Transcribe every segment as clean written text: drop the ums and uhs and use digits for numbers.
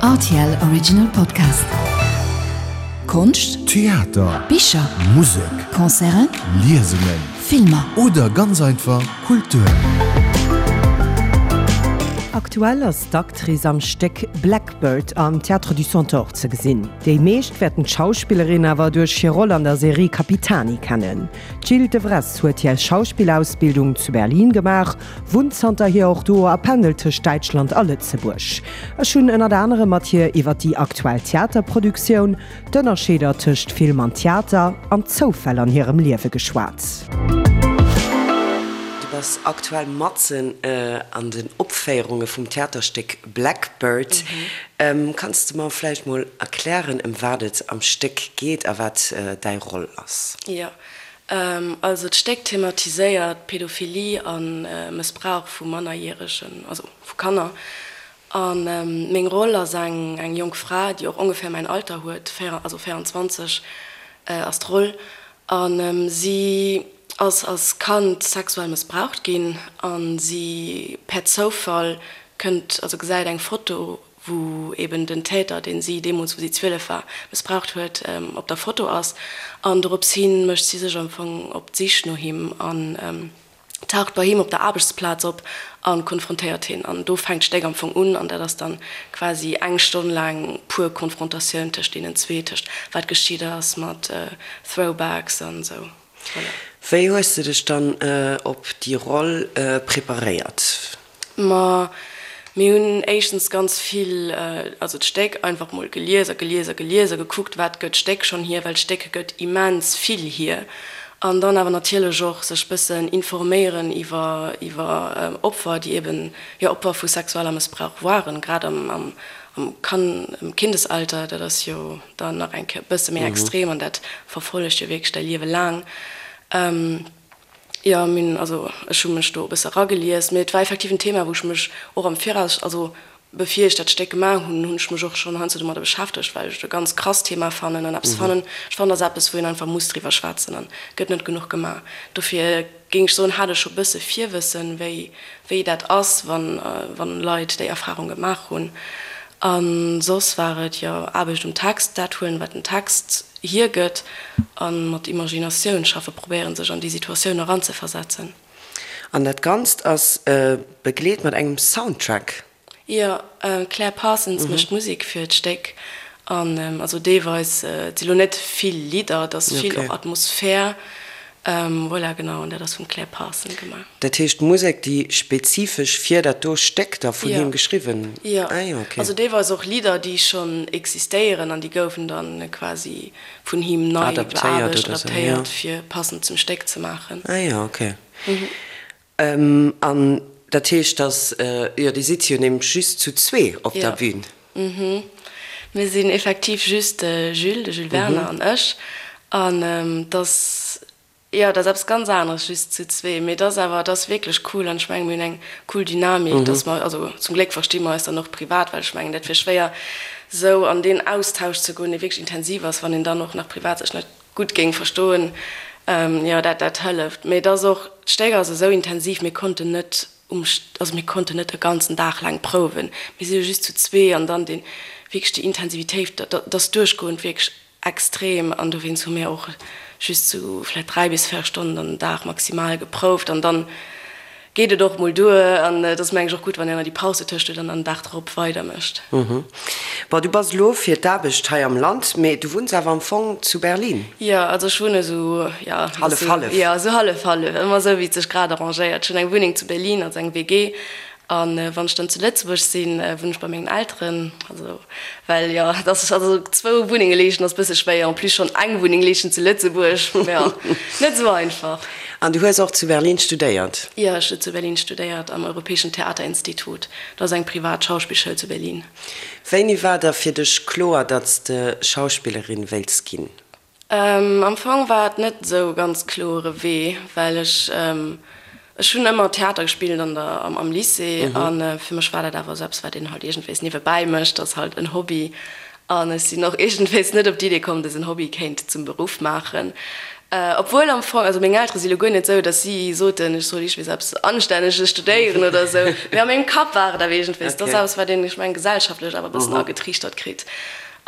Rtl Original Podcast. Konscht, Theater, Bicher, Musek, Concerten, Liesungen, Filmer. Oder ganz einfach Kultur. Aktuell ass d'Actrice am Stéck Blackbird am Théâtre du Centaure ze gesinn. Déi meescht wäerten d'Schauspillerin awer duerch hir Roll an der Serie Capitani kennen. D'Jil Devresse huet hir Schauspillausbildung zu Berlin gemaach, wunnt zanterhier och do a pendelt tëscht Däitschland a Lëtzebuerg. Ech hunn ënnert anerem mat hir iwwer déi aktuell Theaterproduktioun, d'Ënnerscheeder tëscht Film an Theater an d'Zoufäll an hirem Liewe geschwat. Du bass aktuell matzen an den Opféierunge vum Theaterstéck Blackbird. Kanns de mer vläicht mol erklären, ëm wat et am Stéck geet a wat däi Roll ass? Jo, also d'Stéck thematiséiert Pädophilie a Mëssbrauch vu Mannerjäregen, also vu Kanner. A meng Roll ass eng eng jonk Fra, déi och ongeféier mäin Alter huet, also 24 ass d'Roll. A si ass als Kand sexuell mëssbraucht ginn a si per Zoufall kënnt, also gesäit eng Foto wou eben den Täter, deen si deemools, wou si 12 war, mëssbraucht huet, op der Foto ass. An dorops hi mécht si sech am Fong op d'Sich no him an taucht bei him op der Aarbechtsplaz op a konfrontéiert hien. An do fänkt d'Stéck am Fong un an dat ass dann quasi eng Stonn laang pur Konfrontatioun tëscht deenen zwee, tëscht wat geschitt ass mat Throwbacks an esou. Voilà. Wéi hues de dech dann op déi Roll preparéiert? Ma mir hunn éischtens ganz vill, also d'Stéck einfach mol gelies a gelies a gelies a gekuckt, wat gëtt d'Stéck schonn hier, well d'Stéck gëtt immens vill hier. An dann awer natierlech och sech bëssen informéieren iwwer iwwer Opfer, déi eben, jo, Opfer vu sexueller Mëssbrauch waren, grad am am am Kan am Kindesalter, dat ass jo dann nach eng Kéier e bësse méi extrem an dat verfollegt jo wierklech däi Liewe laang. Jo, mir hunn, also ech hu mech do e bësse eragelies, mee et war effektiv en Thema, wou ech mech och am Viraus, also bevir ech dat Stéck gemaach hunn, hunn ech mech och schonn heiansdo domadder beschäftegt, well ech et e ganz krasst Thema fannen an eppes fannen, ech fannen, dat ass eppes, wou een einfach muss driwwer schwätzen an gëtt net genuch gemaach. Dofir géing ech soen, hat ech scho bësse Virwëssen, wéi, wéi dat ass, wann, wann Leit déi Erfarung gemaach hunn. A soss war et, jo, Aarbecht um Text, dat huelen, wat den Text hiergëtt a mat Imaginatioun schaffe, probéieren sech an déi Situatioun eranzeversetzen. An dat Ganzt ass begleet mat engem Soundtrack. Jo, d'Claire Parsons mécht d'Musek fir d'Stéck an also deelweis, et si lo net vill Lidder, et ass vill och Atmosphär, voilà, genau, an dat ass vum Claire Parsons gemaach. Dat heescht Musek, déi spezifesch fir dat do Stéck da vun him geschriwwen? Jo, also deelweis och Lidder, déi schonn existéieren an déi goufen da quasi vun him nei beaarbecht, adaptéiert, fir passend zum Stéck ze maachen. Ah jo, ok. An dat heescht, dass, jo, Dir sidd jo nämlech just zu zwee op der Bühn. Jo, mir sinn effektiv just de Jules, de Jules Werner an ech. An et ass, jo, et ass eppes ganz aneres just zu zwee, mee et ass awer, et ass wierklech cool an ech mengen, mir hunn eng cool Dynamik, dass mer, also zum Gléck versti mer eis dann och privat, well ech mengen, dat wier schwéier esou an deen Austausch ze goen, dee wierklech intensiv ass, wann een dann och nach privat sech net gutt géing verstoen, jo dat dat hëlleft. Mee et ass och, d'Stéck ass esou intensiv, mir konnten net um, also mir konnten net e ganzen Dag laang prouwen, mir si jo just zu zwee an dann deen, wierklech déi Intensivitéit, dat ass duerchgoend wierklech extrem an dowéinst hu mir och just sou vläicht 3 bis 4 Stonnen dann den Dag maximal geprouft an dann geet et och mol duer an et ass meng ech och gutt, wann een ëmmer déi Paus dotëscht huet an dann den Dag drop weider mécht. Bon, du bass elo fir d'Aarbecht hei am Land, mee du wunns awer am Fong zu Berlin? Jo, also ech wunne sou, jo, Hallef, hallef. Jo, sou hallef, hallef, ëmmer sou wéi et sech grad arrangéiert. Ech hunn eng Wunneng zu Berlin, also eng WG, An wann ech dann zu Lëtzebuerg sinn, wunnen ech bei mengen Elteren. Also, well jo, et ass, also zwou Wunnenge leeschten ass bësse schwéier, en plus schonn eng Wunneng leeschten zu Lëtzebuerg, jo, net esou einfach. An du hues och zu Berlin studéiert? Jo, ech hu zu Berlin studéiert, am Europäischen Theaterinstitut. Dat ass eng privat Schauspillschoul zu Berlin. Wéini war da fir dech kloer, datt s de Schauspillerin wéilts ginn? Am Fong war et net esou e ganz kloere Wee, well ech, ech hunn ëmmer Theater gespillt an der, am Lycée a fir mech war dat awer esou eppes, wat een halt iergendwéis niewebäi mécht, ass halt en Hobby. An ech sinn och iergendwéis net op d'Idee komm, dësen Hobby kéint zum Beruff maachen. Obwuel am Fong, also meng Eltere si lo guer net esou, datt si soten, ech soll iergendwees eppes Anstänneges studéieren oder esou, mee a mengem Kapp war et awer iergendwees, dat ass eppes, wat een, ech mengen, gesellschaftlech awer e bëssen agetriichtert kritt.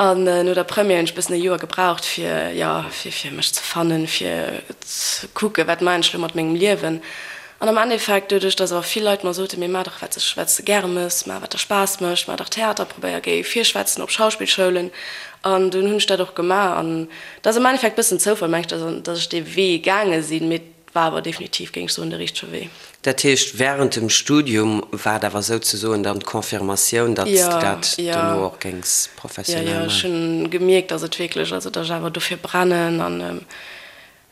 An no der Première hunn ech e bëssen e Joer gebraucht, fir, jo, fir, fir mech ze fannen, fir ze kucken, wat maachen ech lo mat mengem Liewen. An am Endeffekt, doduerch dass awer vill Leit mer soten, mee maach dach wat sech, wat s de gäre mëss, maach wat der Spaass mécht, maach dach Theater, probéier, géi virschwätzen op Schauspillschoulen. An dunn hunn ech dat och gemaach. An dat ass am Endeffekt bëssen Zoufall, meng ech, dass, dass ech dee Wee gaange sinn, mee et war awer definitiv, géing ech soen, de richtege Wee. Dat heescht, wärend dem Studium war et awer souzesoen dann d'Confirmatioun, datt s de dat dono och géings professionell maachen? Jo, jo, ech hunn gemierkt, dass et wierklech, also dass ech awer dofir brennen an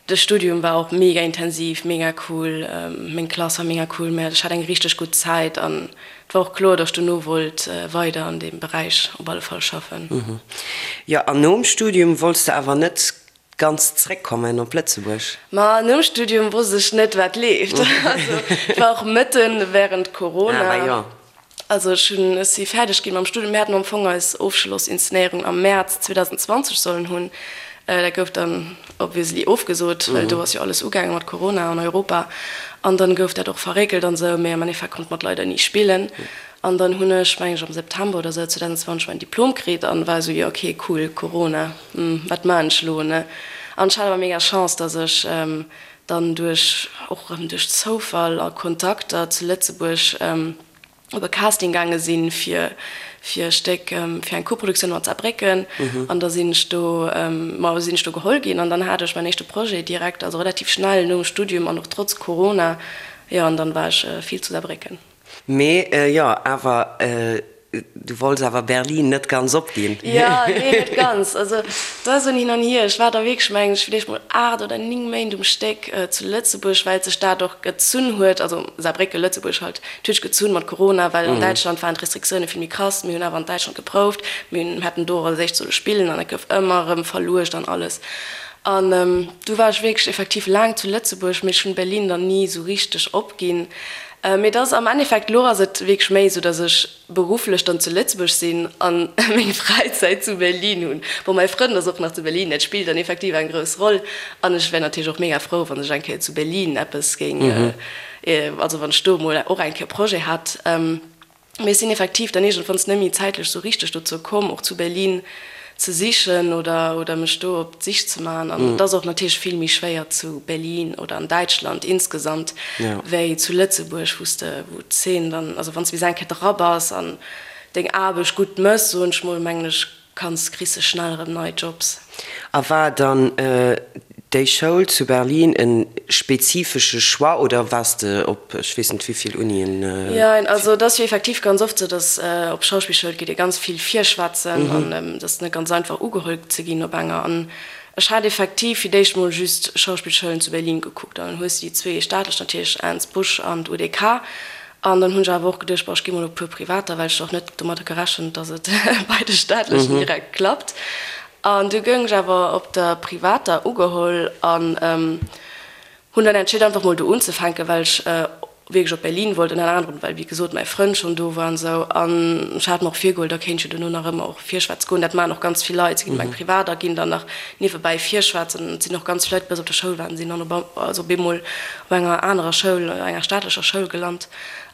De Studium war och mega intensiv, mega cool, meng Klass war mega cool, mä ech hat eng richteg gutt Zäit an et war och kloer, datt ech dono wollt weider an deem Beräich op alle Fall schaffen. Jo, an nom Studium wollts de awer net ganz zréckkommen op Lëtzebuerg? Ma nom Studium wosst ech net, wat leeft. Also et war och mëtten während Corona. Ah jo. Also ech hunn, ech si fäerdeg ginn mam Studium. Mir haten am Fong eis Ofschlossinszenéierung am Mäerz 2020 sollen hunn. Dat gouf dann obviously ofgesot, well do ass jo alles ugaange mat Corona an Europa. An dann gouf dat och verréckelt an esou. Mee am Endeffekt konnt mer et leider ni spillen. An dann hunn ech, meng ech, am September oder esou 2020 mäin Diplom kritt an war esou, jo ok, cool, Corona, wat maan ech elo, ne? An ech hat awer mega Chance, dass ech dann duerch, och erëm duerch Zoufall a Kontakter zu Lëtzebuerg op e Casting gaange sinn fir fir e Stéck, fir eng Koproduktioun mat Saarbrécken. An da sinn ech do, ma sinn ech do geholl ginn an dann hat ech mäin éischte Projet direkt, also relativ schnell nom Studium an och trotz Corona, jo, an dann war ech vill zu Saarbrécken. Mee jo, awer du wollts awer Berlin net ganz opginn. Jo, nee, net ganz. Also et war esou en Hin an Hier. Ech war da wierklech, mengen ech, villäicht mol 8 oder 9 Méint um Stéck zu Lëtzebuerg, well sech dat och gezunn huet, also Saarbrécken, Lëtzebuerg halt, et huet sech gezunn mat Corona, well an Däitschland waren d'Restriktioune vill méi krass. Mir hunn awer an Däitschland geprouft, mir hunn, hätten do och als éischt solle spillen an dat gouf ëmmer erëm verluecht an alles. An du war ech wierklech effektiv laang zu Lëtzebuerg, mee ech hunn Berlin dann ni esou richteg opginn. Mee et ass am Endeffekt, elo ass et wierklech méi esou, datt ech berufflech dann zu Lëtzebuerg sinn a meng Fräizäit zu Berlin hunn. Bon, mäi Frënd ass och nach zu Berlin, dat spillt dann effektiv eng grouss Roll. An ech wär natierlech och mega frou, wann ech eng Kéier zu Berlin eppes géing, also wann ech do emol och eng Kéier Projet hätt. Mee ech sinn effektiv dann iergendwanns net méi zäitlech sou richteg dozou komm, och zu Berlin ze sichen oder, oder mech do op d'Sich ze maachen. An et ass och natierlech vill méi schwéier zu Berlin oder an Däitschland insgesamt wéi zu Lëtzebuerg, wou s de, wou d'Zeen dann, also wann s de bis eng Kéier dra bass an deng Aarbecht gutt mëss, soen ech mol, mengen ech, Kanns kriss se schnell erëm nei Jobs. A war dann déi Schoul zu Berlin e spezifesche Choix oder waars de op ech weess net wéivill Unien? Jein, also et ass jo effektiv ganz oft sou, datt op Schauspillschoul geet ee ganz vill virschwätzen an et ass net ganz einfach ugeholl ze ginn op enger. An ech hat effektiv fir d'éischt mol just Schauspillschoulen zu Berlin gekuckt an dann hues de déi zwee staatlech natierlech, Ernst Busch an d'UDK. An dann hunn ech awer och geduecht, bon, ech gi mol op e puer privater, well ech och net domadder gerechent, datt et bei de staatlechen direkt klappt. An du goung ech awer op der privater ugeholl an hunn dann entscheet, einfach mol do unzefänken, well ech wierklech op Berlin wollt, ënner anerem well, wéi gesot, mäi Frënd schonn do war an esou. An ech hat mer och virgeholl, da kéint ech jo dono nach ëmmer och virschwätze goen. Dat maachen och ganz vill Leit, si ginn op eng privat a ginn dann nach niewebäi virschwätzen. Et sinn och ganz vill Leit, déi bei eis op der Schoul waren, sinn dann op, also op eemol op enger anerer Schoul, enger staatlecher Schoul gelant.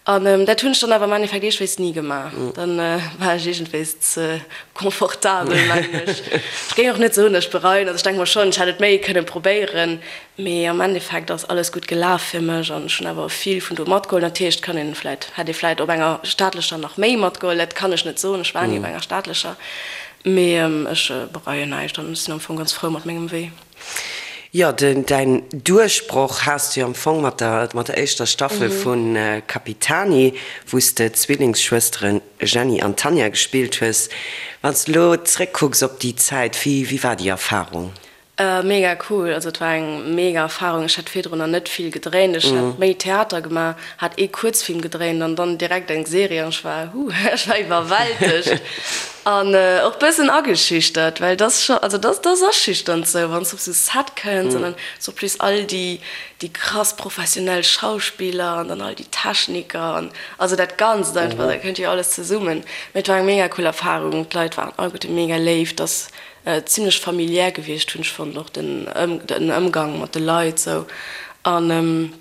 An dat hunn ech dann awer am Endeffekt iergendwéis ni gemaach. Dann war ech iergendwéis ze confortabel, mengen ech. Ech géing och net soen, datt ech bereien. Also ech denke mer schonn, ech hätt et méi kënnen probéieren, mee am Endeffekt ass alles gutt gelaf fir mech an ech hunn awer vill vun do matgeholl. Natierlech kann een vläit, hätt ee vläit op enger staatlecher nach méi matgeholl, dat kann ech net soen, ech war ni op enger staatlecher, mee ech bereien näischt an ech sinn am Fong ganz frou mat mengem Wee. Jo, däin Duerchbroch has de jo am Fong mat der mat der éischter Staffel vu Capitani, wou s de d'Zwillingsschwësteren Jenny an Tanja gespillt hues. Wann s de elo zréckkucks op déi Zäit, wéi wéi war déi Erfarung? Mega cool, also et war eng mega Erfarung. Ech hat virdrunner net vill gedréint, ech hat méi Theater gemaach, hat ee Kuerzfilm gedréint an dann direkt eng Serie an ech war, huh, ech war iwwerwältegt. An och bëssen ageschüchtert, well et ass scho, also et ass, et ass aschüchternd sou, wann s de op sou Set kënns an dann sur plus all déi, déi krass professionell Schauspiller an dann all déi Techniker an also dat Ganzt einfach, da kënnt jo alles zesummen. Mee et war eng mega cool Erfarung, d'Leit waren alleguerte mega léif, et ass zimlech familiär gewiescht hunn ech fonnt, och den den Ëmgang mat de Leit sou. An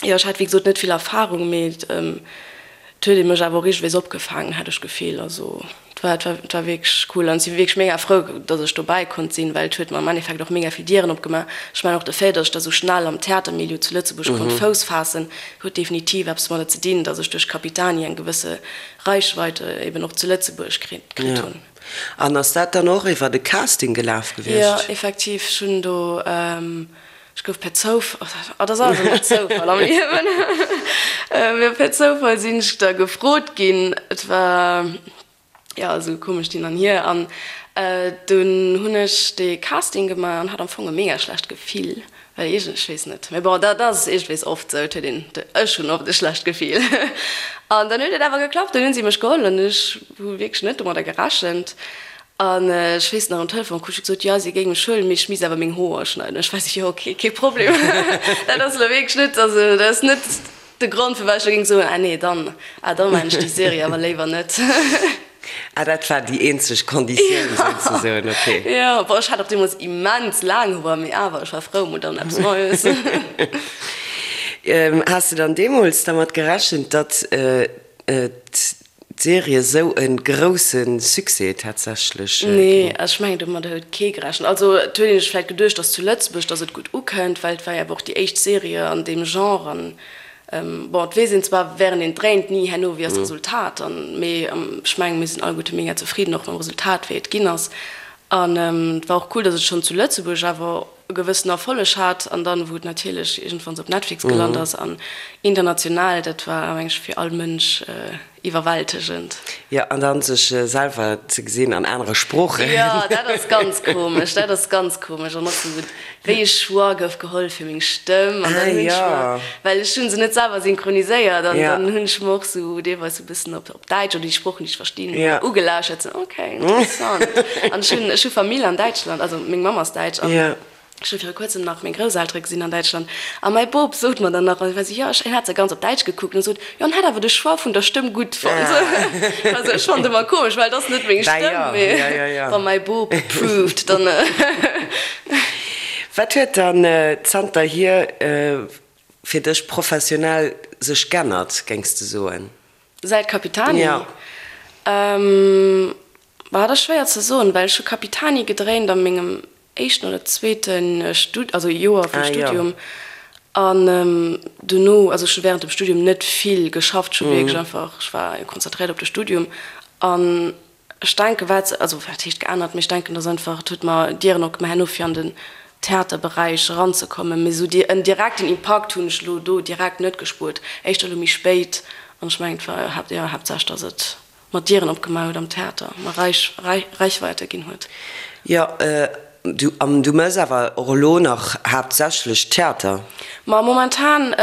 jo, ech hat wéi gesot net vill Erfarung, mee et huet ee mech awer och iergendwéis opgefaangen, hat ech d'Gefill. Also et war et war et war wierklech cool an ech si wierklech mega frou, datt ech dobäi konnt sinn, well et huet mer am Endeffekt och mega vill Dieren opgemaach. Ech mengen och de Fait, datt ech da sou schnell am Theatermilieu zu Lëtzebuerg konnt Fouss faassen, huet definitiv eppes domadder ze dinn, datt ech duerch Capitani eng gewësse Reichweite eben och zu Lëtzebuerg kritt hunn. An ass dat dann och iwwer e Casting gelaf gewiescht? Jo, effektiv. Ech hunn do, ech gouf per Zoufall, oh, dat ass alles ëmmer Zoufall am Liewen, mee per Zoufall sinn ech da gefrot ginn. Et war, jo, esou komescht Hin an Hier. An dunn hunn ech dee Casting gemaach an hat am Fong e mega schlecht Gefill. Well iergend, ech weess net, mee bon, dat ass iergendwees oft sou, et huet een, ech hunn oft e schlecht Gefill. An dann huet et awer geklappt, dann hunn si mech geholl an ech hu wierklech net domadder gerechent. An ech weess nach, um Telefon krut ech gesot, jo, si géing mech huelen, mee ech misst awer meng Hoer schneiden. Ech war sou, jo, ok, kee Problem. Dat ass elo wierklech net, also dat ass net de Grond, firwat ech elo géing soen, ah nee, dann, ah da maachen ech déi Serie awer léiwer net. Ah, dat war déi eenzeg Konditioun souzesoen, ok. Jo, bon, ech hat och deemools immens laang Hoer, mee awer, ech war frou mol dann eppes Neies. Has de dann deemools dermat gerechent, datt d'Serie esou e grousse Succès tatsächlech ginn? Nee, ech mengen domadder huet kee gerechent. Also et huet een sech vläicht geduecht, datt zu Lëtzebuerg, datt et gutt ukënnt, well et war jo awer och déi éischt Serie an deem Genre an Bon, et weess een zwar während een dréint ni herno wéi ass d'Resultat an, mee ech mengen mir sinn alleguerte mega zefridden och mam Resultat wéi et ginn ass. An et war och cool, datt et schonn zu Lëtzebuerg awer e gewëssen Erfolleg hat an dann wou et natierlech iergendwanns op Netflix gelant ass an international, dat war meng ech fir all Mënsch Iwwerwältegend. Jo, an dann sech selwer ze gesinn an anere Sproochen. Jo, dat ass ganz komesch, dat ass ganz komesch. An och sou, wéi e Choix gouf geholl fir meng Stëmm. An dann hunn ech mer, well ech hu se net selwer synchroniséiert, an dann hunn ech mer och sou deelweis sou e bëssen op op Däitsch oder déi Sproochen, déi ech verstinn, ugelauschert, sou, ok, interessant. An ech hunn, ech hu Famill an Däitschland, also meng Mamm ass Däitsch an. Ech hu viru kuerzem nach meng Grousseltere gesinn an Däitschland a mäi Bop sot mer dann nach, also jo, ech, hien hat se ganz op Däitsch gekuckt an sot, jo, en hätt awer de Choix vun der Stëmm gutt fonnt. Also ech fonnt ëmmer komesch, well et ass net meng Stëmm, mee wa mäi Bop approved, dann. Wat huet dann zanterhier fir dech professionell sech g'ännert, géings de soen? Säit Capitani? Jo. Bah, dat ass schwéier ze soen, well ech hu Capitani gedréint a mengem éischten oder zweete Stud-, also Joer vum Studium. An dono, also ech hu während dem Studium net vill geschafft, ech hu wierklech einfach, ech war konzentréiert op de Studium. An ech denken, wat, also wat heescht geännert, mee ech denken, dass einfach, et huet mer Dieren opgemaach herno fir an den Theaterberäich eranzekommen. Mee esou en direkten Impakt hunn ech elo do direkt net gespuert, éischter elo méi spéit. An ech mengen, et war, jo, haaptsächlech, dass et mer Dieren opgemaach huet am Theater, mer Reichweite ginn huet. Jo, du, an du mëss awer och elo nach haaptsächlech Theater? Ma momentan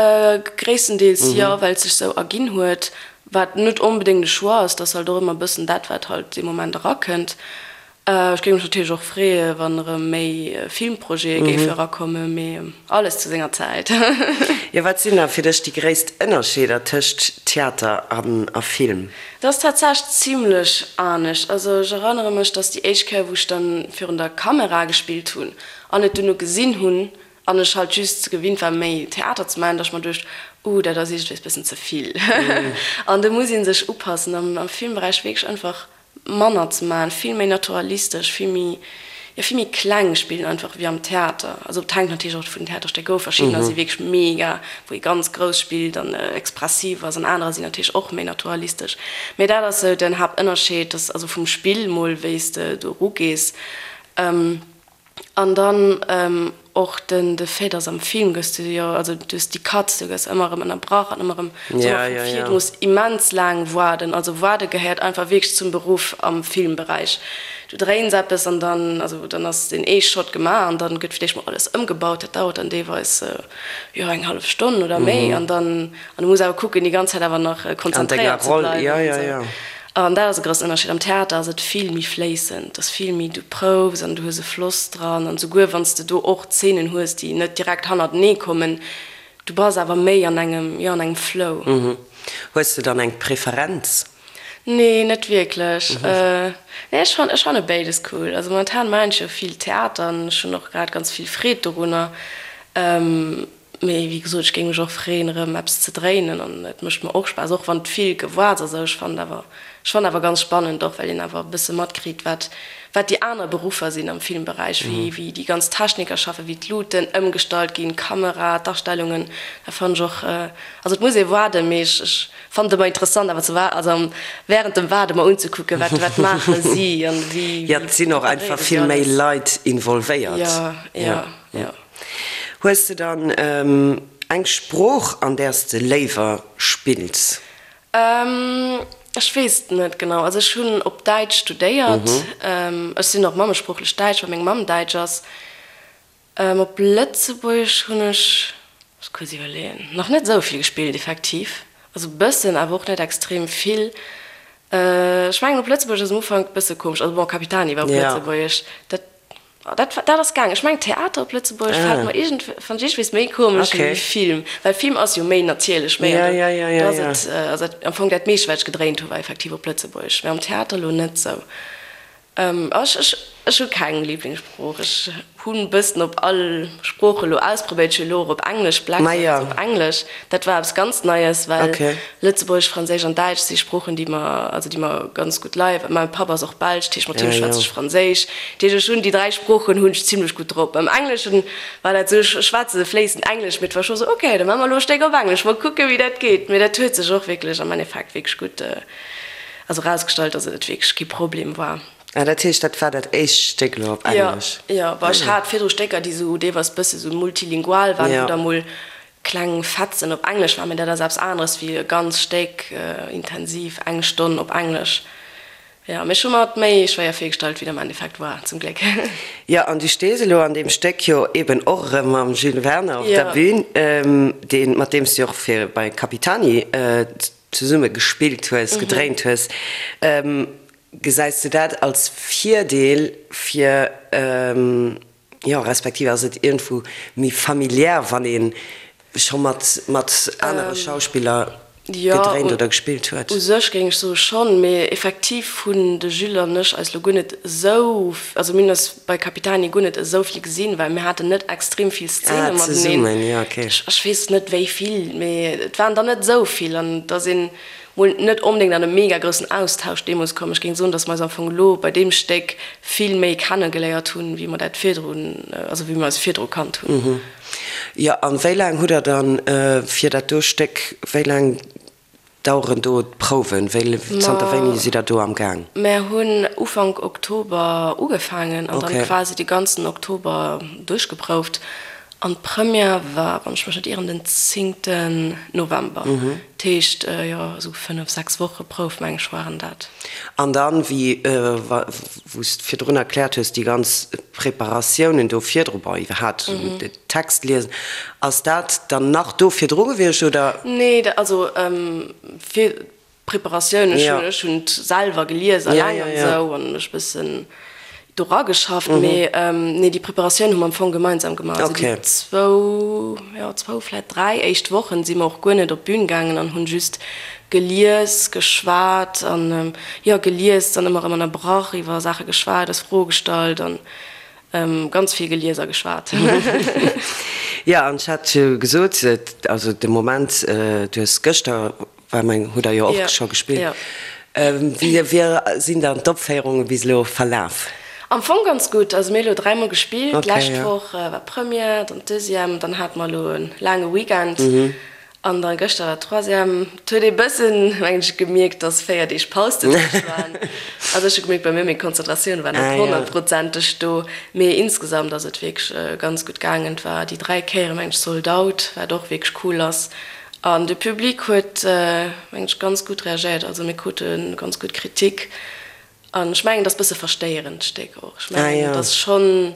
gréisstendeels jo, well et sech sou erginn huet, wat net onbedéngt e Choix ass, et ass halt och ëmmer e bëssen dat, wat halt dee Moment erakënnt. Ech géing mech natierlech och freeë wann erëm méi Filmprojete géife erakommen, mee alles zu senger Zäit. Jo, wat sinn da fir dech déi gréisst Ënnerscheeder tëscht Theater a Film? Dat ass tatsächlech zimlech anescht. Also ech erënnere mech, dass déi éischt Kéier wou ech dann virun der Kamera gespillt hunn an et duerno gesinn hunn an ech halt just gewinnt war méi Theater ze maachen, dass ech mer duecht, uh dat ass iergendwéis bëssen ze vill. An do muss ee sech upassen. Am Filmberäich wierklech einfach manner ze maachen, vill méi naturalistesch, vill méi, jo vill méi kleng spillen einfach wéi am Theater. Also et hänkt natierlech och vun den Theaterstécker of, verschiddener si wierklech mega, wou ee ganz grouss spillt an expressiv ass an anerer sinn natierlech och méi naturalistesch. Mee dat ass sou den Haaptënnerscheed, dass also vum Spill mol wéi s de do erugees. An dann och den de Fait, dass am Film gëss du jo, also du hues déi Cuts, du gëss ëmmer erëm ënnerbrach an ëmmer erëm sou vu vir, du muss immens laang waarden. Also waarde gehéiert einfach wierklech zum Beruff am Filmberäich. Du dréins eppes an dann, also dann ass deen ee Shot gemaach an dann gëtt fir d'éischt mol alles ëmgebaut, dat dauert dann deelweis jo eng hallef Stonn oder méi an dann, an du muss awer kucken déi ganz Zäit awer nach konzentréiert ze bleiwen an esou. An dat ass e groussen Ënnerscheed. Am Theater ass et vill méi fléissend, et ass vill méi, du proufs an du hues e Floss dran an souguer wann s de do och Zeenen hues, déi net direkt hannertenee kommen, du bass awer méi an engem, jo, an engem Flow. Hues de dann eng Preferenz? Nee, net wierklech. Nee, ech fann, ech fanne béides cool. Also momentan maachen ech jo vill Theater an ech hunn och grad ganz vill Freed dorunner. Mee wéi gesot, ech géing mech och freeën erëm eppes ze dréinen an et mécht mer och Spaass, och wann et vill Gewoarts ass. Ech fannen awer, ech fannen awer ganz spannend och, well een awer e bësse matkritt, wat, wat déi aner Beruffer sinn am Filmberäich, wéi, wéi déi ganz Techniker schaffen, wéi d'Luuten ëmgestallt ginn, d'Kamera, d'Astellungen. Dat fannen ech och, also et muss ee waarden, mee ech, ech fannen et ëmmer interessant awer ze waar, also während dem Waarde mer unzekucken, wat, wat maache si an wéi, Jo, et sinn och einfach preparéiere si vill méi alles. Leit involvéiert. Jo, jo, jo. Hues de dann eng Sprooch an där s de léiwer spills? Ech weess et net genau. Also ech hunn op Däitsch studéiert. Ech sinn och mammesproochlech Däitsch, well meng Mamm Däitsch ass. Op Lëtzebuergesch hunn ech, muss kuerz iwwerleeën, nach net esou vill gespillt effektiv. Also e bëssen, awer och net extrem vill. Ech mengen op Lëtzebuergesch ass am Ufank e bësse komesch. Also bon, Capitani war op Lëtzebuergesch, dat Dat dat ass gaang. Ech mengen Theater op Lëtzebuergesch fält mer iergend fannt ech iergendwees méi komesch wéi Film, well Film ass jo méi natierlech, méi an do do ass et also dat am Fong dat meescht wat ech gedréint hu war effektiv op Lëtzebuergesch, mä am Theater elo net sou. Ech ech ech hu keng Liblingssprooch. Ech hunn bëssen op all Sprooch elo ausprobéiert. Ech hu elo och op Englesch, Blackbird ass op Englesch, dat war eppes ganz Neies, well Lëtzebuergesch, Franséisch an Däitsch si Sproochen, déi mer, also déi mer ganz gutt leien. Mäi Papp ass och Belsch, dat heescht mat him schwätze ech Franséisch. Dat heescht ech hunn déi 3 Sproochen hunn ech zimlech gutt drop. Beim Engleschen war dat esou, ech schwätze fléissend Englesch, mee et war scho sou, ok, da maache mer elo e Stéck op Englesch, mol kucke wéi dat geet. Mee dat huet sech och wierklech am Endeffekt wierklech gutt, also erausgestallt, dass et wierklech kee Problem war. Ah, dat heescht dat war dat éischt Stéck elo op Englesch? Jo, jo, bon ech hat virdru Stécker, déi sou deelweis bësse sou multilingual waren, wou da mol Kleng Fetzen op Englesch war, mee dat ass eppes aneres wéi e ganz Stéck intensiv eng Stonn op Englesch. Jo, mee ech hu mer et méi schwéier virgestallt, wéi et am Endeffekt war, zum Gléck. Jo, an du stees elo an deem Stéck jo eben och erëm mam Jules Werner op der Bühn, deen, mat deem s du jo och fir bei Capitani zesumme gespillt hues, gedréint hues. Gesäis du dat als Virdeel fir Jo, respektiv ass et iergendwou méi familiär, wann ee scho mat mat anere Schauspiller gedréint oder gespillt huet? Jo, u sech géing ech soe schonn, mee effektiv hunn de Jules an ech eis lo guer net esou, also mir hunn eis bei Capitani guer net esou vill gesinn, well mir haten net extrem vill Szene mateneen. Ah, zesummen, jo, okay. Ech weess net wéi vill, mee et waren der net esou vill an et ass een Mol net onbedéngt an e mega groussen Austausch deemools komm. Ech géing soen, dass mer eis am Fong elo bei deem Stéck vill méi kenne geléiert hunn, wéi mer dat virdrun, also wéi mer eis virdru kannt hunn. Jo, an wéi laang hutt Der dann fir dat do Stéck, wéi laang daueren do d'Prouwen? Wéi, zanter wéini sidd Der do am Gaang? Mer hunn Ufank Oktober ugefaangen an dann quasi de ganzen Oktober duerchgeprouft. An d'Première war, wann ech mech net ieren, den zéngten November. Dat heescht, jo, esou fënnef, sechs Woche Prouf, meng ech, waren dat. An dann, wéi wou s de virdrun erkläert hues, déi ganz Preparatiounen do virdru, bon, iwwerhaapt den Text liesen, ass dat dann nach do virdru gewiescht, oder? Nee, also fir Preparatioun, ech hunn ech hunn et selwer gelies alleng an esou an mech bëssen do rageschafft, mee nee déi Preparatioun hu mer am Fong gemeinsam gemaach. Also déi zwou, jo zwou vläit dräi éischt Wochen si mer och guer net op d'Bün gaangen an hunn just gelies, geschwat an jo gelies, dann ëmmer erëm ënnerbrach, iwwer Saache geschwat, eis Froe gestallt an ganz vill gelies a geschwat. Jo an ech hat jo gesot, also de Moment, du hues gëschter War meng, hutt der jo och scho gespillt. Wéi sinn dann d'Opféierunge bis elo verlaf? Am Fong ganz gutt. Also mir hu elo dräimol gespillt. D'lescht Woch war Première, dann d'Deuxième, dann hate mer elo e laange Weekend an da gëschter war d'Troisième. Et huet ee bëssen, mengen ech, gemierkt, dass 4 Deeg Paus dozwëscht waren. Also ech hu gemierkt bei mir, meng Konzentratioun war net honnertprozenteg do. Mee insgesamt ass et wierklech ganz gutt gaangen. Et war déi 3 Kéiere mengen ech sold out, wat och wierklech cool ass. An de Public huet, mengen ech, ganz gutt reagéiert. Also mir krute ganz gutt Kritik. An ech mengen, et ass e bësse verstéierend, d'Stéck och. Ech mengen, et ass schonn.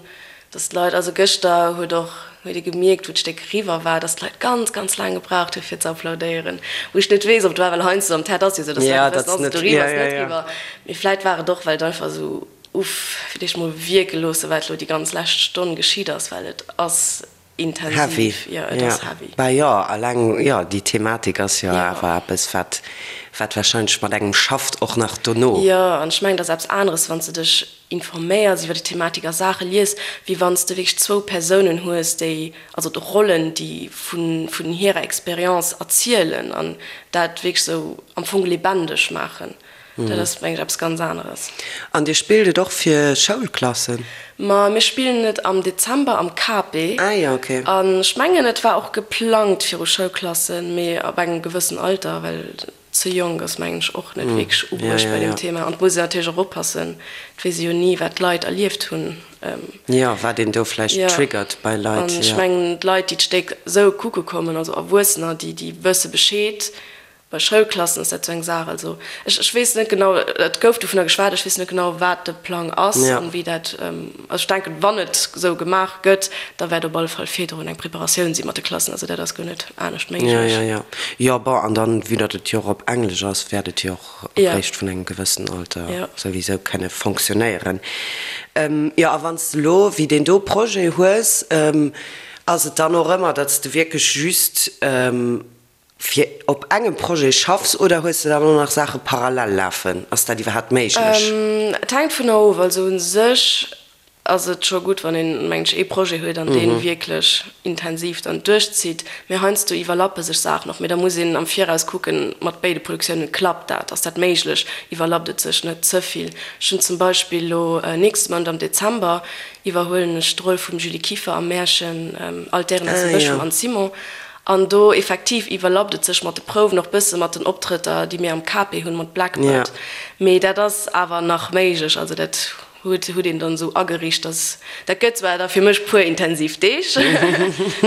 Dass d'Leit, also gëschter huet och, huet ee gemierkt, wou d'Stéck eriwwer war, dass d'Leit ganz, ganz laang gebraucht hu fir ze applaudéieren. Wou ech net weess, ob et war, well heiansdo am Theater ass jo esou, dass d'Leit net wëssen, ass et eriwwer, ass et net eriwwer. Mee vläit war et och, well et einfach esou, uff, fir d'éischt mol wierke loosse, wat elo déi ganz lescht Stonn geschitt ass, well et ass intensiv. Jo, et ass heavy. Bah jo, alleng, jo, déi Thematik ass jo awer eppes, wat, wat wahrscheinlech mat engem schafft, och nach dono. Jo, an ech mengen, et ass eppes aneres, wann s de dech informéiers iwwer déi Thematik a Saache lies, wéi wann s de wierklech zwou Persounen hues, déi, also d'Rollen, déi vun, vun hirer Expérience erzielen an dat wierklech esou am Fong lebendig maachen. Dat ass, mengen ech, eppes ganz aneres. An Dir spillt et och fir Schoulklassen? Ma mir spillen et am Dezember am KP. Ah jo, ok. An ech mengen, et war och geplangt viru Schoulklassen, mee ab engem gewëssen Alter, well ze jonk ass, mengen ech, och net wierklech ubruecht bei deem Thema. An et muss een natierlech och oppassen, et weess ee jo ni, wat d'Leit erlieft hunn. Jo, wat een do vläicht triggert bei Leit. An ech mengen, d'Leit, déi d'Stéck esou kucke kommen, also Erwuessener, déi wësse Bescheed, Bei Schoulklassen ass dat sou eng Saach. Also ech, ech weess net genau, et gouf dovunner geschwat, ech weess net genau, wat de Plang ass an wéi dat, also ech denken, wann et sou gemaach gëtt, da wäert op alle Fall virdrun eng Preparatioun si mat de Klassen. Also dat ass guer net anescht méiglech. Jo, jo, jo. Jo, bon, an dann, vue datt et jo och op Englesch ass, wäert et jo och eréischt vun engem gewëssen Alter souwisou kënne fonctionnéieren. Jo, a wann s de elo wéi deen do Projet hues, ass et dann och ëmmer, datt s de wierklech just, fir op engem Projet schaffs oder hues de dann och nach Saache parallel lafen? Ass dat iwwerhaapt méiglech? Et hänkt vun of. Also u sech ass et scho gutt, wann een, mengen ech, ee Projet huet an dee wierklech intensiv dann duerchzitt. Mee heiansdo iwwerlappe sech Saachen och. Mee da muss een am Viraus kucken, mat béide Produktiounen, klappt dat, ass dat méiglech, iwwerlappt et sech net ze vill? Ech hunn zum Beispill elo nächste Mount am Dezember iwwerhuelen ech d'Roll vum Julie Kieffer am Märchen All d'Déieren aus dem Bësch vum Anne Simon. An do effektiv iwwerlappt et sech mat de Prouwen, och bësse mat den Optrëtter, déi mir am KP hunn, mat Blackbird. Mee dat ass awer nach méiglech. Also dat huet huet een dann esou ageriicht, dass, dat gëtt zwar da fir mech puer intensiv Deeg,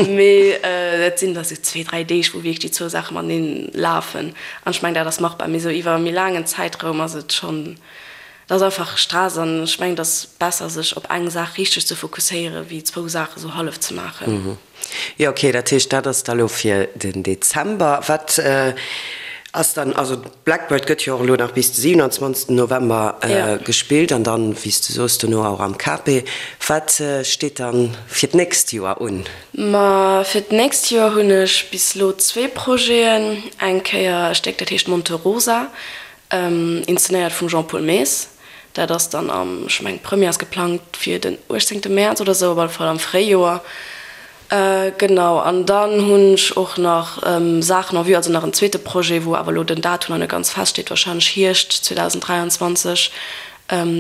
mee dat sinn da sou zwee, dräi Deeg, wou wierklech déi zwou Saache mateneen lafen. An ech mengen, dat ass machbar. Mee esou iwwer e méi laangen Zäitraum ass et schonn, dat ass einfach Stress. An ech mengen, et ass besser, sech op eng Saach richteg ze fokusséieren, wéi zwou Saache sou hallef ze maachen. Jo, ok, dat heescht, dat ass da lo fir den Dezember. Wat ass dann, also Blackbird gëtt jo och elo nach bis de 27 November gespillt an dann, wéi s de soos, dono och am KP. Wat steet dann fir d'nächst Joer un? Ma fir d'nächst Joer hunn ech bis elo zwee Projeten. Eng Kéier e Stéck, dat heescht Monte Rosa, Inszenéiert vum Jean-Paul Maes. Dat ass dann am, ech mengen d'Première ass geplangt fir den 18 Mäerz oder sou, op alle Fall am Fréijoer. Genau, an dann hunn ech och nach Saachen en vue, also nach en zweete Projet, wou awer elo den Datum nach net ganz feststeet, warscheinlech Hierscht 2023.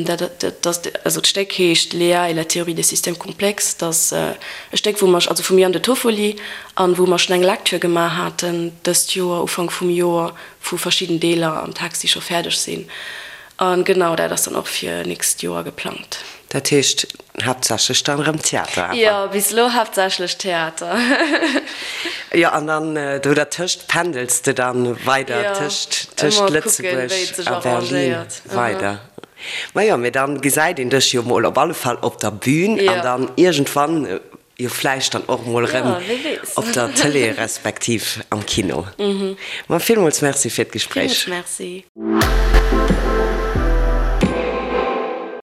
Dat, dat ass, also d'Stéck heescht Léa et la théorie des systèmes complexes. Dat ass e Stéck, wou mer, also vum Yann de Toffoli, an wou mer schonn eng Lecture gemaach haten dëst Joer, Ufank vum Joer, wou verschidden Deeler am Text, déi scho fäerdeg sinn. A genau dat ass dann och fir nächst Joer geplangt. Dat heescht haaptsächlech dann erëm Theater awer? Jo, bis elo haaptsächlech Theater. Jo, an dann do dertëscht pendels de dann weider tëscht tëscht Lëtzebuerg a Berlin weider. Majo, mee dann gesäit een dech jo mol op alle Fall op der Bühn an dann iergendwann Jo vläicht dann och mol rëm op der Tëlee respektiv am Kino. Ma villmools Merci fir d'Gespréich. Villmools Merci.